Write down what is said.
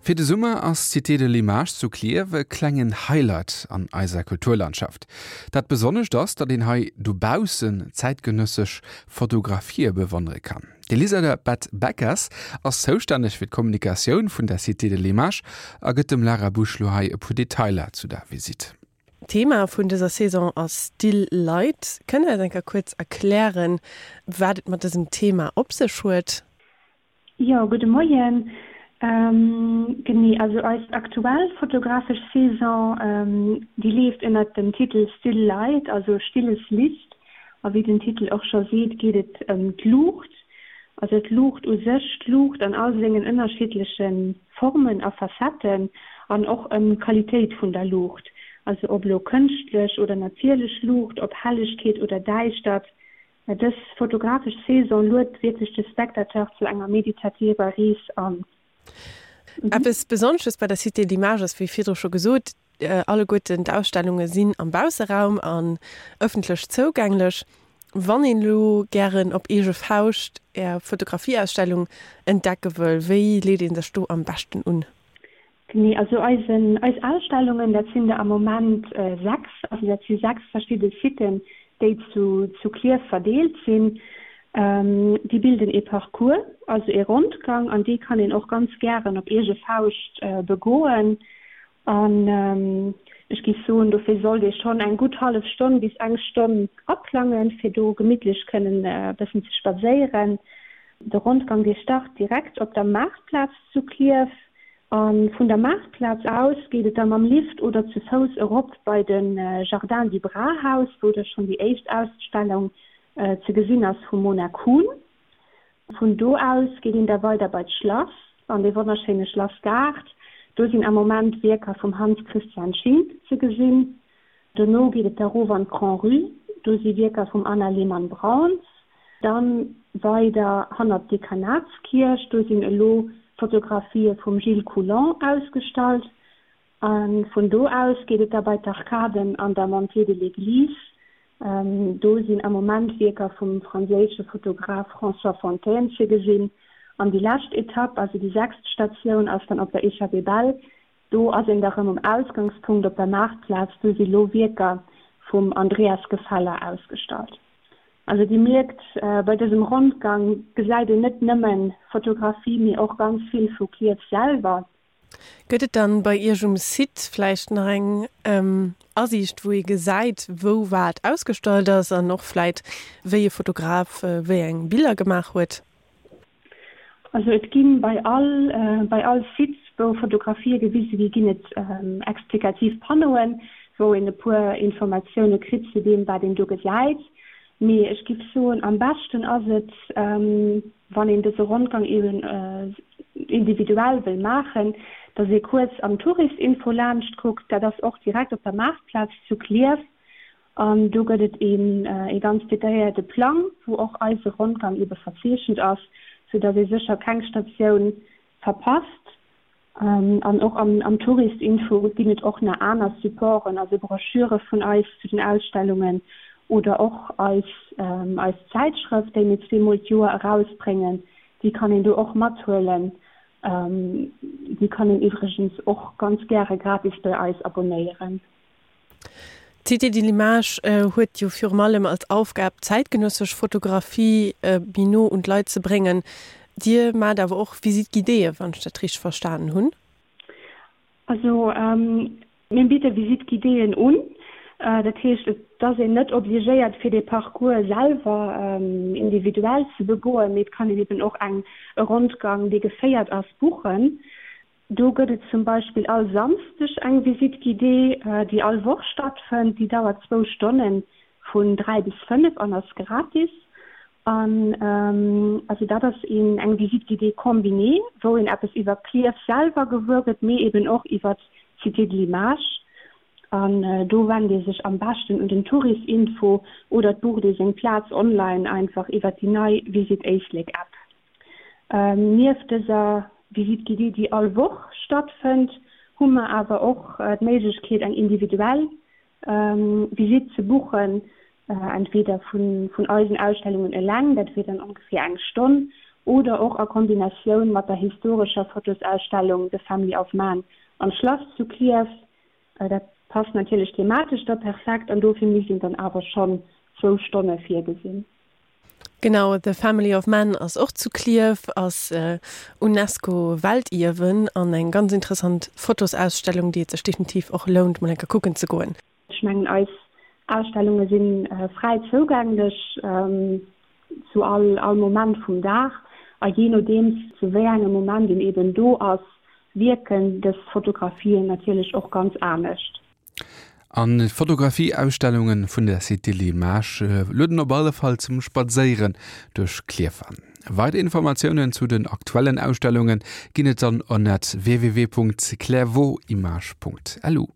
Fir de Summer ass d'Cité de l'Image zu Klierf e klengen Highlight an eiser Kulturlandschaft. Dat Besonnescht ass, datt een hei dobaussen zäitgenëssesch Fotografië bewonnere kann. D'Elisabeth Beckers ass zoustänneg fir d'Kommunikatioun vun der Cité de l'Image a gëtt dem Lara Busch lo hei e puer Detailer zu der Visitt. D'Thema vun dëser Saison ass Still Light. Kënnt Der eis eng Kéier kuerz erklären, wat et mat dësem Thema op sech huet? Jo, gudde Moien. Genee, also eis aktuell fotografesch Saison, déi leeft ënnert dem Titel Still Light, also stilles Licht. A wéi den Titel och scho seet, geet et ëm d'Luucht, also d'Luucht u sech, d'Luucht an all sengen ënnerschiddleche Formen a Facetten an och ëm d'Qualitéit vun der Luucht, also ob elo kënschtlech oder natierlech Luucht, ob Hellegkeet oder Däischtert. Dës fotografesch Saison luet wierklech de Spectateur zu enger meditativer Rees an. Eppes Besonnesches bei der Cité de l'Image ass, wéi virdru scho gesot, alleguerten d'Ausstellunge sinn am Bausseraum an ëffentlech zougänglech. Wann een elo gären op eege Fauscht Är Fotografieausstellung entdecke wëll, wéi leet ee sech do am beschten un? Genee, also eisen, eis Ausstellungen, dat sinn der am Moment 6, also dat si 6 verschidde Siten, déi zu, zu Klierf verdeelt sinn. Déi bilden ee Parcours, also ee Rondgang, an dee kann een och ganz gären op eege Fauscht begoen. An ech géif soen, dofir sollt ee schonn eng gutt hallef Stonn bis eng Stonn aplangen, fir do gemittlech kënnen e bëssen ze spadséieren. De Rondgang, dee start direkt op der Maartplaz zu Klierf. A vun der Maartplaz aus geet et da mam Lift oder zu Fouss erop bei de Jardin du Brahaus, wou da schonn déi éischt Ausstellung ze gesinn ass vum Mona Kuhn. Vun do aus geet een da weider bei d'Schlass, an dee wonnerschéine Schlassgaart. Do sinn am Moment Wierker vum Hans Christian Schink ze gesinn. Dono geet et da rof an d'Grand-Rue, do si Wierker vum Anna Lehmann-Brauns. Dann weider hannert d'Dekanatskierch, do sinn elo Fotografië vum Gilles Coulon ausgestallt. A vun do aus geet et da bei d'Arkaden an der Montée de l'Église, do sinn am Moment Wierker vum franséische Fotograf François Fontaine ze gesinn. An déi lescht Etapp, also déi sechst Statioun, ass dann op der Échappée Belle, Do ass een da rëm um Ausgangspunkt op der Maartplaz, do si lo Wierker vum Andreas Gefeller ausgestallt. Also Dir mierkt, bei dësem Rondgang gesäit een net nëmme Fotografie, mee och ganz vill vu Klierf selwer. Gëtt et dann bei Iech um Site vläicht nach eng Asiicht, wou ee gesäit, wou wat ausgestallt ass an och vläit wéi e Fotograf wéi eng Biller gemaach huet? Also et gi bei all bei all Site, wou Fotografië gewise gi, ginn et explikativ Panneauen, wou een e puer Informatioune kritt zu deem, wat een do gesäit. Mee ech giff soen, am beschten ass et, wann een dëse Rondgang eben individuell wëll maachen, dass ee kuerz am Touristinfo laanscht kuckt. Dat ass och direkt op der Maartplaz zu Klierf. An do gëtt et een ee ganz detailléierte Plang, wou och eise Rondgang ebe verzeechent ass, sou dass ee sécher keng Statioun verpasst. An och am am Touristinfo ginn et och nach aner Supporten, also Broschüre vun eis zu den Ausstellungen oder och eis eis Zäitschrëft, déi mir zweemol d'Joer erausbréngen, déi kann een do och mathuelen. Déi kann een iwwregens och ganz gäre gratis bei eis abonéieren. D'Cité de l'Image huet jo virum allem als Aufgab, zäitgenëssesch Fotografie méi no un d'Leit ze bréngen. Dir maacht awer och Visite guidéeë, wann ech dat richteg verstanen hunn? Also mir bidde Visite guidéeën un. Dat heescht, et ass een net obligéiert, fir dee Parcours selwer individuell ze begoen, mee et kann een eben och eng e Rondgang, dee geféiert ass, buchen. Do gëtt et zum Beispill all Samsdeg eng Visite guidée, déi all Woch stattfënnt. Déi dauert zwou Stonnen, vun 3 bis 5 an ass gratis. An also dat ass een eng Visite guidée combinée, wou een eppes iwwer Klierf selwer gewuer gëtt, mee eben och iwwer d'Cité de l'Image. An do wennt ee sech am beschten un den Tourisinfo oder et bucht ee seng Plaz online einfach iwwer déi nei Visit Éislek App. Nieft dëser Visite guidée, déi all Woch stattfënnt, hu mer awer och d'Méiglechkeet, eng individuell Visite ze buchen, entweder vun eisen Ausstellungen eleng, dat wier dann ongeféier eng Stonn, Oder och a Kombinatioun mat der historescher Fotosausstellung The Family of Man am Schlass zu Klierf. Dat passt natierlech thematesch da perfekt an dofir misst een dann awer schonn zwou Stonne virgesinn. Genau, The Family of Man ass och zu Klierf, ass Unesco-Weltierwen an eng ganz interessant Fotosausstellung, déi et sech definitiv och lount, mol eng Kéier kucken ze goen. Ech mengen, eis Ausstellunge si fräi zougänglech zu all all Moment vum Dag a jee nodeems zu wéi engem Moment een eben do ass, wierken dës Fotografien natierlech och ganz anescht. An d'Fotografie-Ausstellunge vun der Cité L'Image lueden op alle Fall zum Spadséieren duerch Klierf an. Weider Informatiounen zu den aktuellen Ausstellunge ginn et dann ënnert www.clairvauximage.lu.